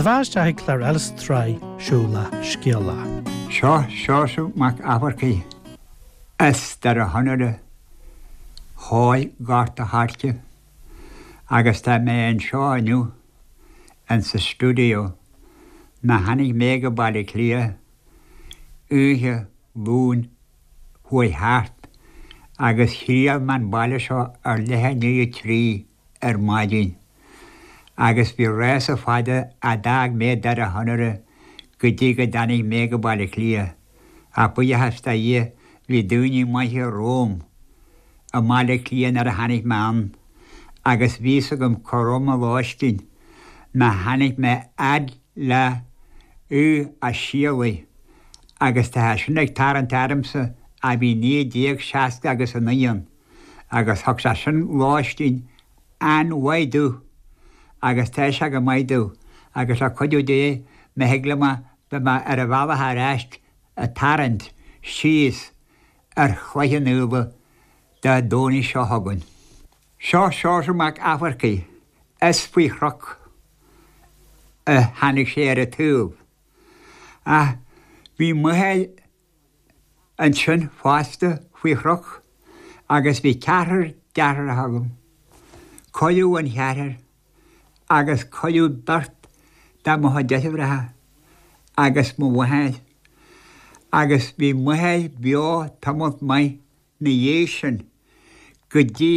bheatha isteach ag clár eile sa tsraith Siúlach Scéalach. Seo Seosamh Mac Eachmharcaigh as Doire Chonaire Thoir Gort a' Choirce agus tá mé anseo inniu insa stiúideo ná tháinig mé go Baile Átha Cliath oíche Luain chuaigh thart agus thriall mé an baile seo ar leath i ndiaidh a 3 ar maidin agus bhí rása fada a d'fhág mé Doire Chonaire go dtí go dtáinig mé go Baile Átha Cliath ach buíochas do Dhia bhí daoine maithe romham i mBaile Átha Cliath nuair a tháinig mé ann agus bhí fhios agam cá raibh mo lóistín má tháinig mé fhad le Uí Ó Sialaigh agus tá sé sin ag tarraingt ormsa ó bhí 1960 agus 9 ann agus thug sé sin lóistín an-mhaith domh agus tá sé go maith domh agus le cuidiú Dé má thig liom beidh mé ar an bhealach ar ais ag tarraingt síos ar Chloich Cheann Fhaola Dé Domhnaigh seo chugainn. Seo Seosamh Mac Eachmharcaigh, is faoi chnoc a tháinig sé ar an tsaol. Ach bhí m'athair ansin fosta faoi chnoc agus bhí ceathrar deartháireacha agam. Cailleadh an ceathrar agus cailleadh beirt de mo chuid deirfiúracha agus mo mháthair agus bhí m'athair beo tamalt maith 'na dhiaidh sin go dtí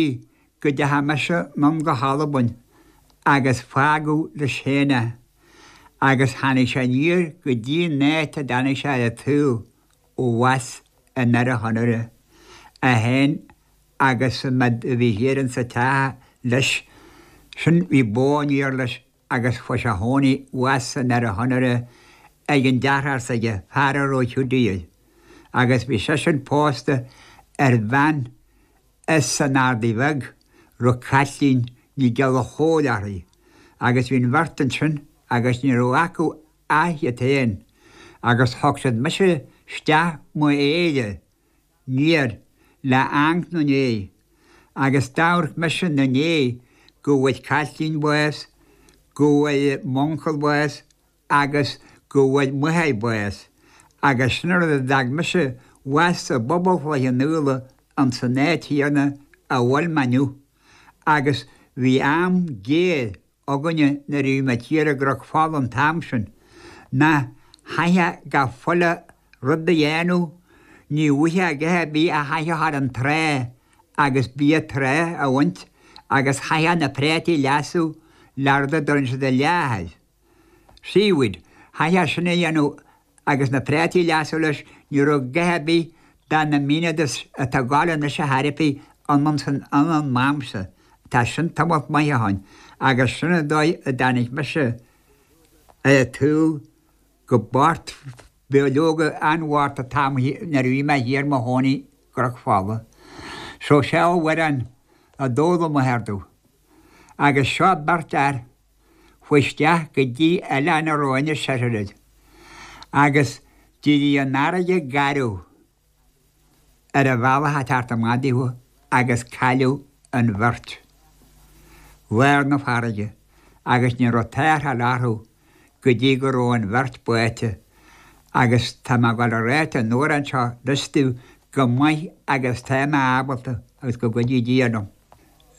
go dteachaidh mise anonn go hAlbain agus fágadh leis féin é agus tháinig sé aniar go dtí an áit a dtáinig sé ar an tsaol abhus i nDoire Chonaire, é féin agus an méid a bhí thiar insa teach leis sin bhí bó aniar leis agus chuaigh sé a chónaí abhus i nDoire Chonaire ag an deartháir s'aige, fear a raibh Hiúdaí air, agus bhí seisean pósta ar bhean as an Ardaidh Bheag, raibh Caitlín Ní Ghallchóir uirthi, agus bhí an bheirt ansin agus ní raibh acu ach iad féin, agus thug siad mise isteach mo aoire 'niar le amharc 'na ndiaidh agus d'amharc mise 'na ndiaidh go bhfuair Caitlín bás, go bhfuair m'uncail bás agus go bhfuair m'athair bás agus sin an rud a d'fhág mise abhus i bpobal Chloich Cheann Fhaola ins an áit chéanna a bhfuil mé inniu agus bhí am géar againne nuair a bhí muid thiar i gCnoc Fola an t-am sin, ná chaithfeá gach chuile rud a dhéanamh, ní bhfuighfeá a dhath ar bith ach chaithfeá a ghabháil an trá agus bia trá a bhaint agus chaithfeá na préataí a leasú le rud a dtugann siad an leath air. Seaweed. Chaithfeá sin a dhéanamh agus na préataí a leasú leis, ní raibh a dhath ar bith de na amenities atá ag gabháil anois ar chor ar bith ann ansan an am san. Tá sin tamalt maith ó shoin agus sin an dóigh a dtáinig mise ar an tsaol go bocht beo leoga an-bhocht an t-am nuair a bhí mé thiar i mo chónaí i gCnoc Fola. So seo amhrán a d'fhoghlaim m'athair domh agus seo beirt fhear Chuaigh isteach go dtí oileán a raibh Inis Oirthir air agus d'éirigh an fharraige garbh ar an bhealach ag teacht amach daofa agus cailleadh an bheirt lár na farraige agus ní raibh tarrtháil orthu go dtí go raibh an bheirt báite agus tá mé ag dul a ráit an amhrán seo anois daoibh go maith agus tá mé ábalta agus go gcuidí Dia liom.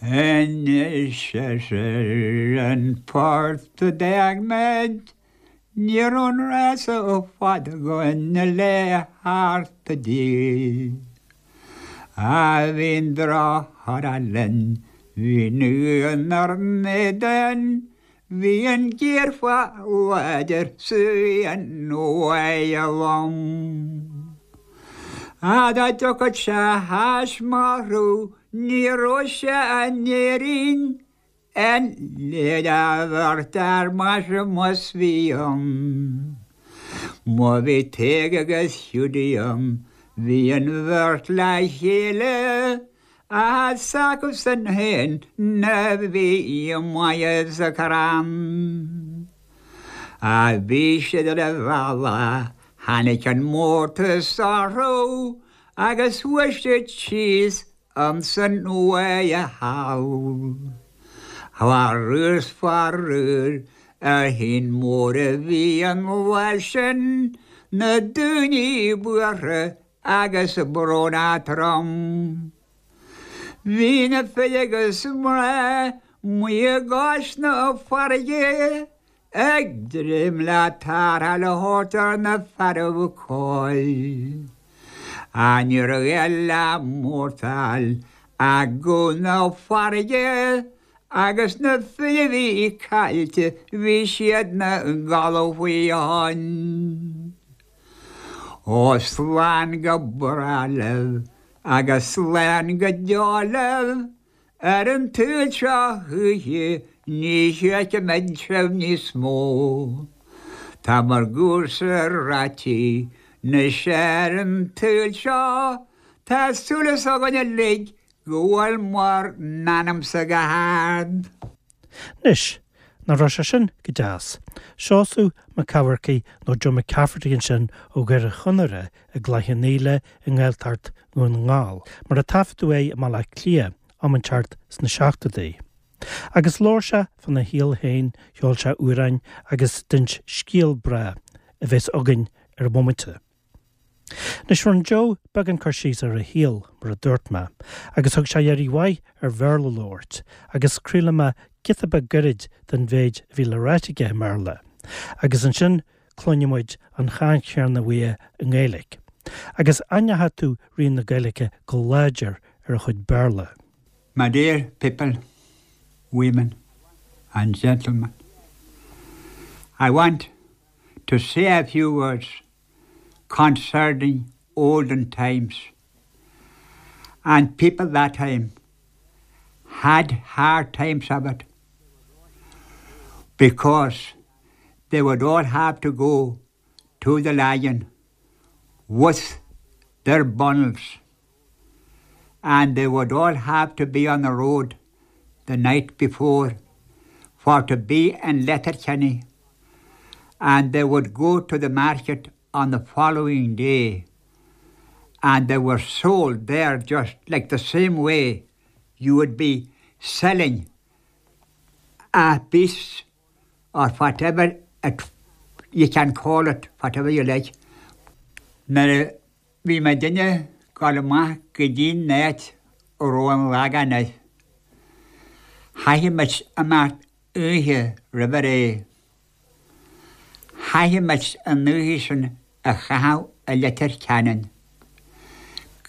Anois ar an phort a d'fhág muid, ní raibh an rása fada againn le theacht i dtír. Á bhí an droch-chora linn, bhí an uain 'nár n-éadan, bhí an ghéarphá láidir 's bhí an bháighe lom. Á dá dtiocfadh sé th'ais mo Ní raibh sé in Éirinn an léir a bheirt fhear maise más bhí ann. Má bhí Tadhg agus Hiúdaí ann, bhí an bheirt le chéile, ach is acusan féin a bhí maith sa chrann. Ach bhí siad ar a bhealach, tháinig an mórtas orthu Agus chuaigh siad síos ansan uaidh thall. Faraor 's faraor. Ar shuan mór a bhí an lá sin, na daoine buartha agus brónach trom. Bhí na fir agus mná amuigh i gcois na farraige ag dréim le tarrtháil a thabhairt ar na fearaibh coill. Ach ní raibh a dhath le mórtáil ach guth na farraige agus na fir a bhí caillte bhí siad 'na gcodladh faoi thoinn. Ó slán go bráth libh agus slán go deo libh ar an tsaol seo choíche ní feicfimid sibh níos mó. Tá bhur gcúrsa ráití 'nois ar an tsaol seo tá súil againn uilig go bhfuil bhur n-anamsa go hard. Anois, nach raibh sé sin go deas? Seosamh Mac Eamharcaigh nó Joe McCafferty ansin ó Dhoire Chonaire i gCloich Cheann Fhaola i nGaeltacht Dhún na nGall, mar a taifeadadh é i mBaile Átha Cliath am inteacht sna seachtóidí. Agus labhair sé fána shaol féin, cheol sé amhráin agus d'inis scéal breá a bheas againn ar an bhomaite. Anois rinne Joe beagán cur síos ar a shaol, mar a dúirt mé, agus thug sé iarraidh mhaith ar Bhéarla a labhairt, agus craolfaidh mé giota beag gairid den mhéid a bhí le ráit aige i mBéarla, agus ansin cluinfidh muid an chaint chéanna uaidh i nGaeilge. Agus aithneoidh tú rian na Gaeilge go láidir ar a chuid Béarla. My dear people, women and gentlemen, I want to say a few words concerning olden times and people that time had hard times of it because they would all have to go to the Lagan with their bundles and they would all have to be on the road the night before for to be in Letterkenny and they would go to the market on the following day and they were sold there just like the same way you would be selling a beast or whatever it, you can call it whatever you like. Nuair a bhí muidinne ag gabháil amach go dtí'n áit a raibh an Lagán air, chaithfeadh muid imeacht oíche roimh ré. Chaithfeadh muid an oíche sin a chaitheamh i Leitir Ceanainn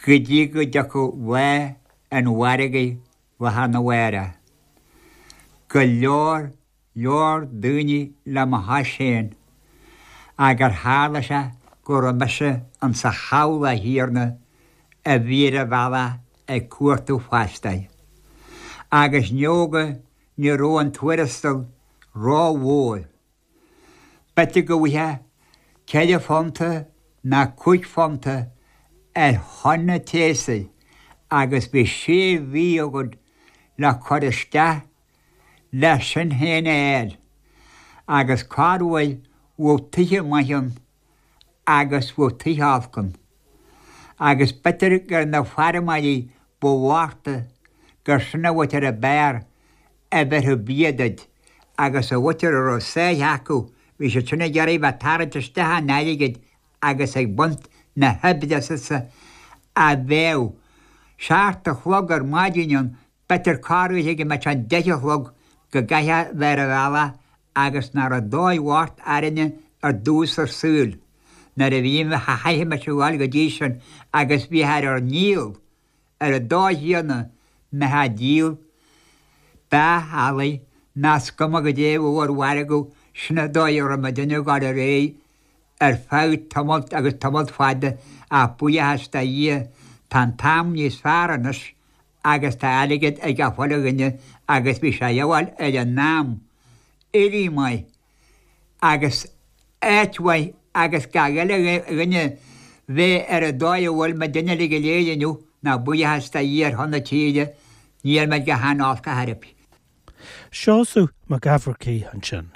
go dtí go dtiocfadh lá an mhargaidh lá arna mhárach. Go leor, leor daoine le mo chois féin agur tharla sé go raibh mise insa chabhlach chéanna a bhí ar an bhealach ag cuartú fostaithe. Agus ndóigh ní raibh an tuarastal ró-mhór. B'fhéidir go bhfaighfeá ceithre phunta ná cúig phunta ar thonna tséasúir agus bhí sé mhí agat le cur isteach le sin féin a fháil agus corruair bheadh tithe maithe ann agus bheadh tithe olc ann agus b'fhéidir gur na feirmeoirí ba bhoichte gur sin an mhuintir ab fhearr a bhéarfadh bia duit agus an mhuintir a raibh sáith acu bhí siad sin ag iarraidh bheith tarraingt isteach an airgid agus ag baint na hoibre asatsa a bheadh seacht a chlog ar maidin ann B'fhéidir corruair go mbeadh sé an deich a chlog go gcaithfeá bheith ar an bhealach agus nach raibh dóigh bhocht orainne ar dtús ár saoil nuair a bhí chaithfeadh muid a ghabháil go dtí sin agus bhíthear ar ár ndícheall ar an dóigh chéanna mbeifeá ag díol beach eallaigh ná is cuma goidé a bheadh ar mhargadh sin an dóigh a raibh muidinne ag gabháil ar aghaidh ar feadh tamalt agus tamalt fada ach buíochas do Dhia tá an t-am níos fearr anois agus tá airgead ag gach uile dhuine agus bhí sé a dhíobháil ar an am, éirí maith agus áit mhaith agus gach uile dhuine bheith ar an dóigh a bhfuil muidinne uilig go léir inniu ná buíochas do Dhia ar shon na tíre níl muid go han-olc ar chor ar bith. Seosamh Mac Eamharcaigh ansin.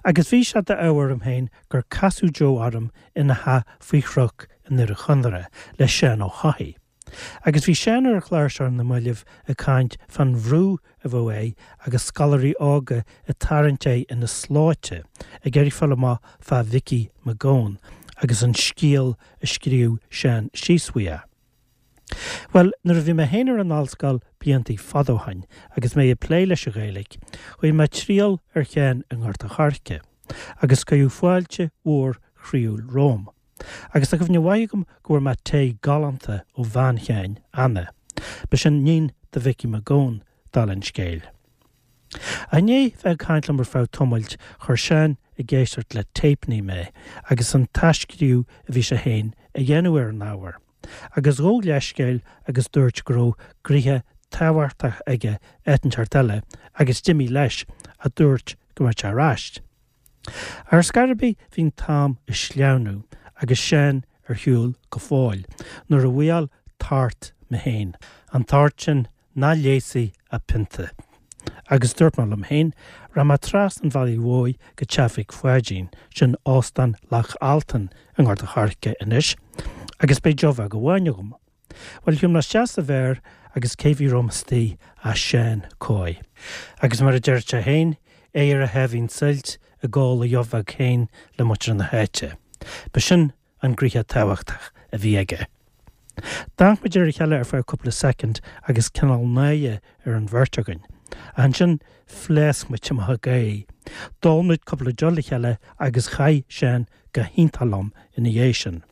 Agus bhí sé d'ádh orm féin gur casadh Joe orm ina theach faoi chnoc i nDoire Chonaire le Seán Ó hEochaidh. Agus bhí Seán ar an chlár seo ar na mallaibh ag caint fán bhrú a bheadh air agus scoláirí óga ag tarraingt air ina slóite ag iarraidh fáil amach fá Mhicí Mac Gabhann agus an scéal a scríobh Seán síos faoi. Bhuel, nuair a bhí mé féin ar an ollscoil bliantaí fada ó shoin agus mé ag plé leis an Ghaeilge, chuaigh mé triall ar Sheán i nGort a' Choirce agus cuireadh fáilte mhór chroíúil romham. Agus tá cuimhne mhaith agam go bhfuair mé tae galánta ó bhean Sheáin, Anna. Ba sin níon do Mhicí Mac Gabhann, dála an scéil. I ndiaidh bheith ag caint liom ar feadh tamaill, chuir Seán ag éisteacht le téipeanna mé agus an t-athscríobh a bhí sé féin a dhéanamh ar an ábhar. Agus ghabh leithscéal agus dúirt go raibh gnoithe tábhachtach aige áit inteacht eile agus d'imigh leis, ach dúirt go mbeadh sé ar ais. Ar scor ar bith bhí an t-am ag sleamhnú agus Seán ar shiúl go fóill nuair a bhuail tart mé féin, an tart sin nach leigheasfaidh ach pionta. Agus dúirt mé liom féin, rachaidh mé trasna an bhealaigh mhóir go teach Mhic Pháidín, sin Óstán Loch Altan i nGort a' Choirce anois, agus beidh deoch bheag amháin agam. Bhuel, shiúil mé isteach sa bheár agus cé bhí romham istigh ach Seán Coy. Agus mar a deir sé féin, é ar a sháimhín suilt ag ól a dheoch bheag féin le muintir na háite. Ba sin an gnoithe tábhachtach a bhí aige. D'amharc muid ar a chéile ar feadh cúpla soicind agus cineál náire ar an bheirt againn. Ach ansin phléasc muid amach ag gáirí. D'ól muid cúpla deoch le chéile agus chaith Seán go hiontach liom ina dhiaidh sin.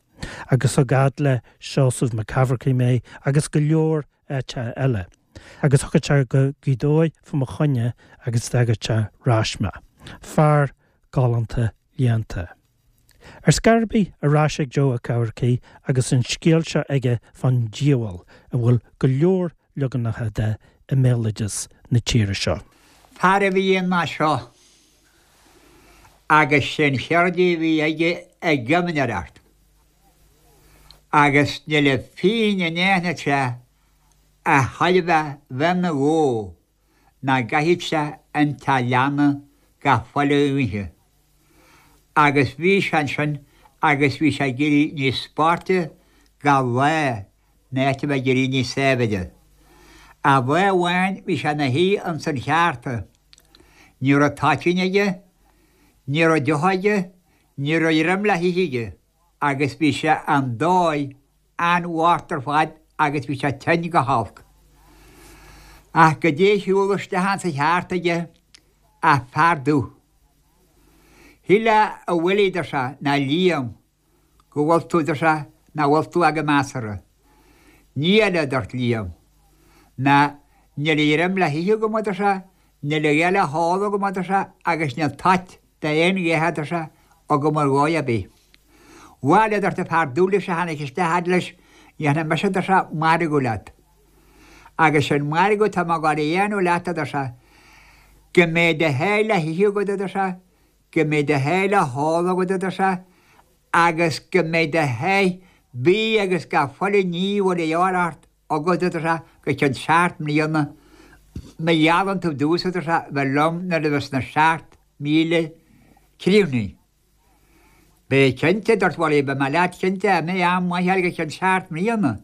Agus thug fhad le Seosamh Mac Eamharcaigh mé agus go leor áiteacha eile. Agus thiocfadh sé go Gaoth Dobhair fá mo choinne agus d'fhágadh sé arais mé. Fear galánta léannta. Ar scor ar bith, ar ais ag Joe Ó Ceamharcaigh agus an scéal seo aige fán diabhal a bhfuil go leor leaganacha de i mbéaloideas na tíre seo. Fear a bhí ann mar seo agus sé'n cheird a bhí aige ag geimneoireacht agus níl a phingin in aithne sé a thuillfeadh bheith 'na dhó ná gcaithfeadh sé an teach leanna gach chuile oíche. Agus bhí sé ansin agus bhí sé ag éirí níos boichte gach lá in áit a bheith ag éirí níos saibhre. Ach lá amháin bhí sé ina shuí ins an cheárta. Ní raibh toitín aige, ní raibh deoch aige, ní raibh greim le hithe aige agus bhí sé an dóigh an-bhocht ar fad agus bhí sé tinn go holc. Ach goidé a shiúl isteach ins an cheárta aige ach fear dubh. Shíl a Willie, deir sé, ná Liam, go bhfuil tú, deir sé, nach bhfuil tú ach go measartha. Ní eile, a dúirt Liam, ná níl a ghreim le hithe agam, a deir sé, níl a dhath le hól agam, a deir sé, agus níl toit d'aon dhath, a deir sé, agam ar dhóigh ar bith. Bhail, a dúirt an fear dubh leis a tháinig isteach fhad leis, dhéanfaidh mise, a deir sé, margadh leat. Agus sé'n margadh atá mé ag gabháil a dhéanamh leat, a deir sé, go mbeidh do sháith le hithe agat, a deir sé, go mbeidh do sháith le hól agat, a deir sé, agus go mbeidh do sháith bídh agus gach chuile ní a bhfuil a dhíobháil ort agat, a deir sé, go ceann seacht mbliana, má gheallann tú domhsa, a deir sé, bheith liom nuair a bheas na 7000 críochnaithe. Beidh cinnte, a dúirt Willie, beidh mé leat cinnte, a mbeidh am maith agat go ceann seacht mbliana.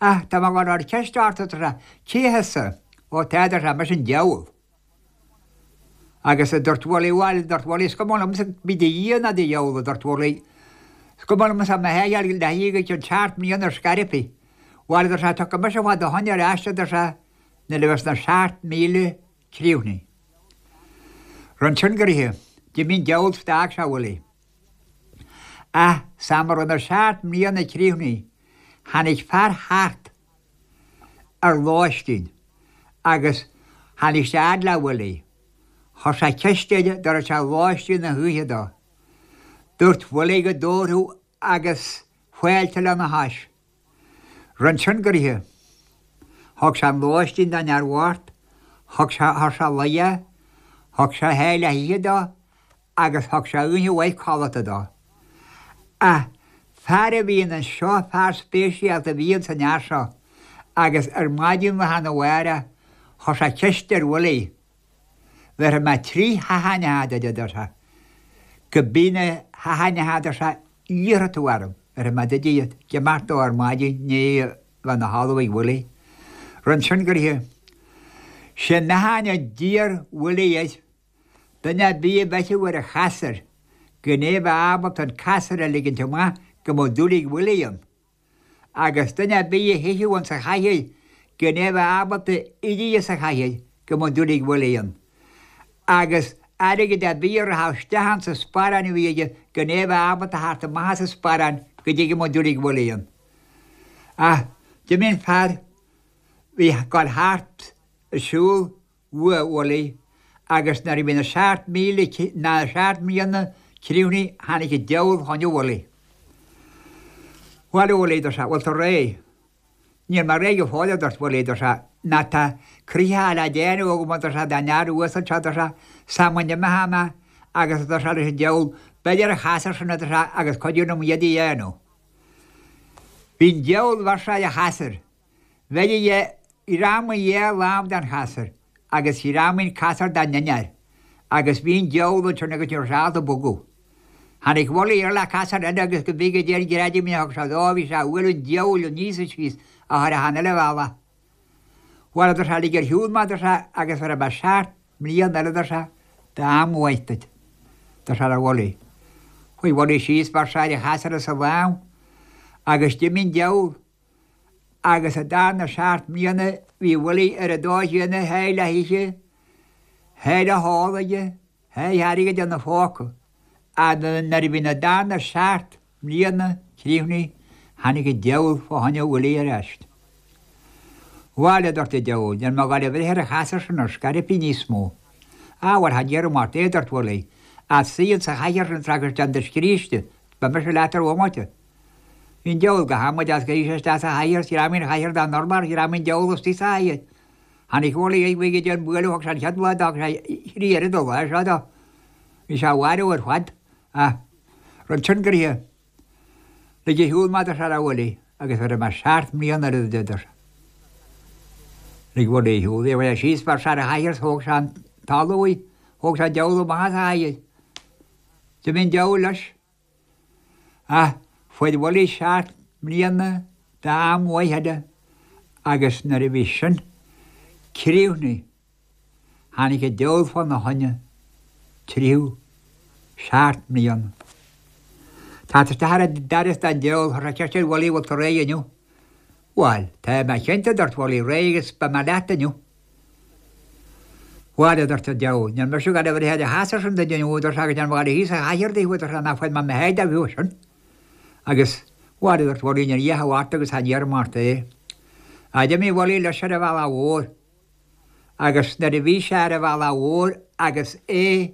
Ach tá mé ag gabháil a chur ceist ort, a deir sé, cé thusa? Ó tá, a deir sé, mise an diabhal. Agus a dúirt Willie, bhuel, a dúirt Willie, is cuma liomsa bí do Dhia ná do dhiabhal, a dúirt Willie, is cuma liomsa mo sháith a fháil le hithe go ceann seacht mbliana ar scor ar bith. Bhuel, a dúirt sé, tiocfaidh mise fá do choinne ar ais, a dúirt sé, nuair a bheas na 7000 críochnaithe. Rinne sin gnoithe. D'imigh an diabhal 's d'fhág sé Willie. Ach san am a raibh na seacht mbliana críochnaithe, tháinig fear thart ar lóistín agus tháinig sé fhad le Willie. Chuir sé ceist air an dtabharfadh sé lóistín na hoíche dó. Dúirt Willie go dtabharfadh agus fáilte lena chois. Rinn sin gnoithe. Thug sé an lóistín don fhear bhocht, thug sé, chuir sé luí é, thug sé a sháith le hithe dó agus thug sé oíche mhaith codlata dó. Ach fear a bhí anseo, fear speisialta a bhí ins an fhear seo agus ar maidin lá arna mhárach chuir sé ceist ar Willie, Bhéarfaidh mé trí sheachaine duit, a deir sé, go bí na sheachaine, a deir sé, iarrfaidh tú orm, bhéarfaidh mé duit iad, ag imeacht dó ar maidin ní. bheith ina thalamh ag Willie. Rinne sin go raibh sé meáchan a d'iarr Willie air, duine ar bith a bheifeadh ar a chasúr, gan é bheith ábalta an casúr a ligint amach go mbeadh dúil ag Willie ann. Agus duine ar bith a shuífeadh ins an chathaoir gan é bheith ábalta éirí as an chathaoir go mbeadh dúil ag Willie ann. Agus airgead ar bith a rachadh isteach ins an sparán a bhí aige gan é bheith ábalta theacht amach as an sparán go dtí go mbeadh dúil ag Willie ann. Ach d'imigh an fear bhí ag gabháil thart ag siúl uaidh Willie agus nuair a bhí na 7,000 na 7 mbliana críochnaithe tháinig an diabhal fá choinne Willie. Bhuel a Willie, dúirt sé, bhfuil tú réidh? Níl mé réidh go fóill, a dúirt Willie, dúirt sé, ná tá croitheadh le déanamh agam, a dúirt sé, don fhear uasal seo, dúirt sé, sula n-imeoidh mé agus, a dúirt sé leis an diabhal, beir ar an chasúr sin, a dúirt sé, agus cuidigh liom iad a dhéanamh. Bhí an diabhal, bheir sé ar an chasúr. Bheir a ghreamaigh a lámh den chasúr agus ghreamaigh an casúr dá ndinnéar agus bhí an diabhal ansin agus ní raibh sé ábalta bogadh. Tháinig Willie air le casúr eile agus go mbí go dtí an greidimín a thug sé dó bhí sé a bhualadh an diabhail aníos is síos a chur achan uile bhealach. Bhuel a dúirt sé lig ar shiúl mé a dúirt sé agus bhéarfaidh mé seacht mbliana eile a dúirt sé d'am mhaith duit. Dúirt sé le Willie. Chuaigh Willie síos bheir sé ar an chasúr as a lámh agus d'imigh an diabhal. Agus sa darna seacht mbliana bhí Willie ar an dóigh chéanna sháith le hithe, sháith le hól aige, sháith airgid ina phóca. Ach nuair a bhí na darna seacht mbliana críochnaithe tháinig an diabhal fá choinne Willie ar ais. Bhail, a dúirt an diabhal, níl mé ag gabháil a bhreith ar an chasúr sin ar scor ar bith níos mó. Á, bhuel, cha déarfainn ort é, a dúirt Willie, ach suigh insa chathaoir sin agus déan do scríste, beidh mise leat ar bhomaite. Bhí an diabhal go hamaideach agus shuigh sé isteach sa chathaoir is ghreamaigh an chathaoir dá n-urlár, ghreamaigh an diabhal istigh sa chathaoir. Tháinig Willie air bhí go dtí an bualadh thug sé an chéad lá dó, thug sé thrí oiread an lá seo dó. Bhí sé á mharú ar fad. Ach rud sin go raibh lig ar shiúl mé a dúirt sé le Willie agus bhéarfaidh mé seacht mbliana eile duit a dúirt sé. Lig Willie ar shiúl é, bhí sé síos bheir sé ar an chathaoir is thóg sé an talamh uaidh, thóg sé an diabhal amach as an chathaoir. D'imigh an diabhal leis. Ach fuair Willie seacht mbliana d'am mhaith eile agus nuair a bhí sin críochnaithe tháinig an diabhal fá na choinne tríú seacht mbliana. Teacht isteach ar an doras don diabhal chuir sé ceist ar Willie bhfuil tú réidh inniu? Bhuel, tá mé cinnte a dúirt Willie, réidh agus beidh mé leat inniu. Bhuel, a dúirt an diabhal, níl mise ag gabháil a bhreith ar an chasúr sin duit inniu, a dúirt sé, agus níl mé ag gabháil a shuí sa chathaoir duit, a dúirt sé, ná fuair mé mo sháith de bheo sin. Agus, bhuel, a dúirt Willie, níl a dhath ort agus cha ndéarfaidh mé ort é. Ach d'imigh Willie leis ar an bhealach mhór. Agus nuair a bhí sé ar an bhealach mhór agus é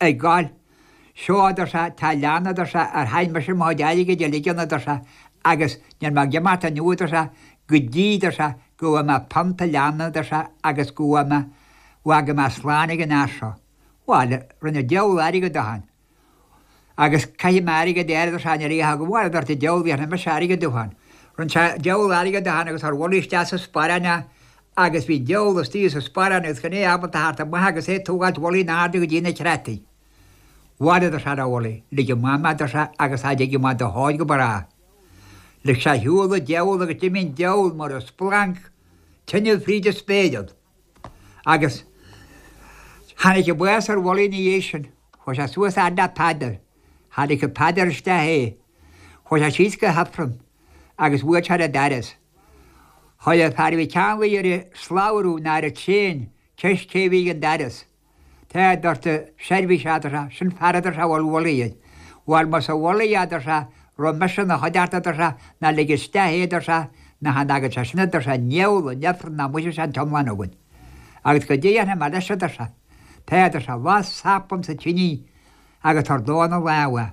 ag gabháil. Seo, a dúirt sé, tá leanna, a dúirt sé, ar chaith mise mo chuid airgid uilig ann, a dúirt sé, agus níl mé ag imeacht inniu, a dúirt sé, go dtí, a dúirt sé, go bhfaighidh mé pionta leanna, a dúirt sé, agus go bhfaighidh mé, bhfágfaidh mé slán ag an fhear seo. Bhail, rinne an diabhal airgead dó féin. Agus caithfidh mé airgead a fháil, a dúirt sé, níl a dhath agam, bhail, a dúirt an diabhal, bhéarfaidh mise airgead dó féin. Rinne sé diabhal airgead dó féin agus chuir Willie isteach sa sparán é agus bhí an diabhal istigh sa sparán agus gan é ábalta theacht amach agus é ag tógáilt Willie in airde go dtí na creataí. Bhail, a dúirt sé le Willie, lig amach mé, a dúirt sé, agus cha dtiocfaidh mé do thóir go bráth. Lig sé ar shiúl an diabhal agus d'imigh an diabhal mar a splanc tine fríd an spéir ann. Agus tháinig an bás ar Willie ina dhiaidh sin. Chuaigh sé suas fhad le Peadar. Cha ligfeadh Peadar isteach é. Chuaigh sé síos go hIfreann agus bhuail sé ar an doras. Chuir an fear a bhí ceanlaí ar an slabhra ná ar an traein ceist cé a bhí ag an doras. Tá, a dúirt an seirbhíseach, a dúirt sé, sin fear a dúirt sé a bhfuil Willie air. Bhuel, más é Willie é, a dúirt sé, raibh mise ina chuideachta, a dúirt sé, ná lig isteach é, a dúirt sé, ná chan fhágann sé sin, a dúirt sé, an ndiabhal, an ifreann ná muise sé an t-iomlán againn. Agus goidé a dhéanfaidh mé leis, a dúirt sé. Tá, a dúirt sé, las sap insa tinidh agus tabhair dó ina lámh é.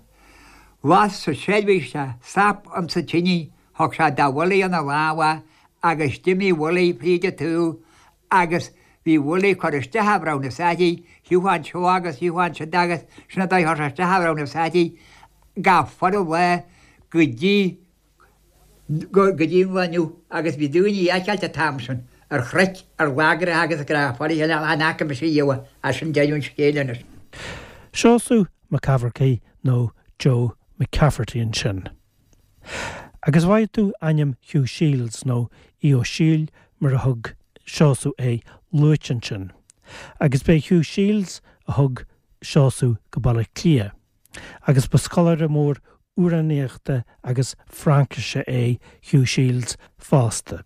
Las an seirbhíseach sap insa tinidh, thug sé do Willie ina lámh é agus d'imigh Willie fríd an tsaol agus bhí Willie ag cur isteach a bhreamhnas uirthi, thiocfadh anseo agus thiocfadh ansiúd agus sin an dóigh a chuir sé isteach a bhreamhnas uirthi gach fuaire lá go dtí go dtí an lá inniu agus bhí daoine a fheiceáilt an t-am sin ar chnoic, ar lagracha agus ag rá fáilte chan fhaca mise riamh é sin deireadh an scéil anois. Seosamh Mac Eamharcaigh nó Joe McCafferty ansin. Agus bhfaighidh tú ainm Hugh Shields, nó Aodh Ó Siadhail mar a thug Seosamh é, luaite ansin. Agus b'é Hugh Shields a thug Seosamh go Baile Átha Cliath. Agus ba scoláire mór amhránaíochta agus Fraincise é Hugh Shields fosta.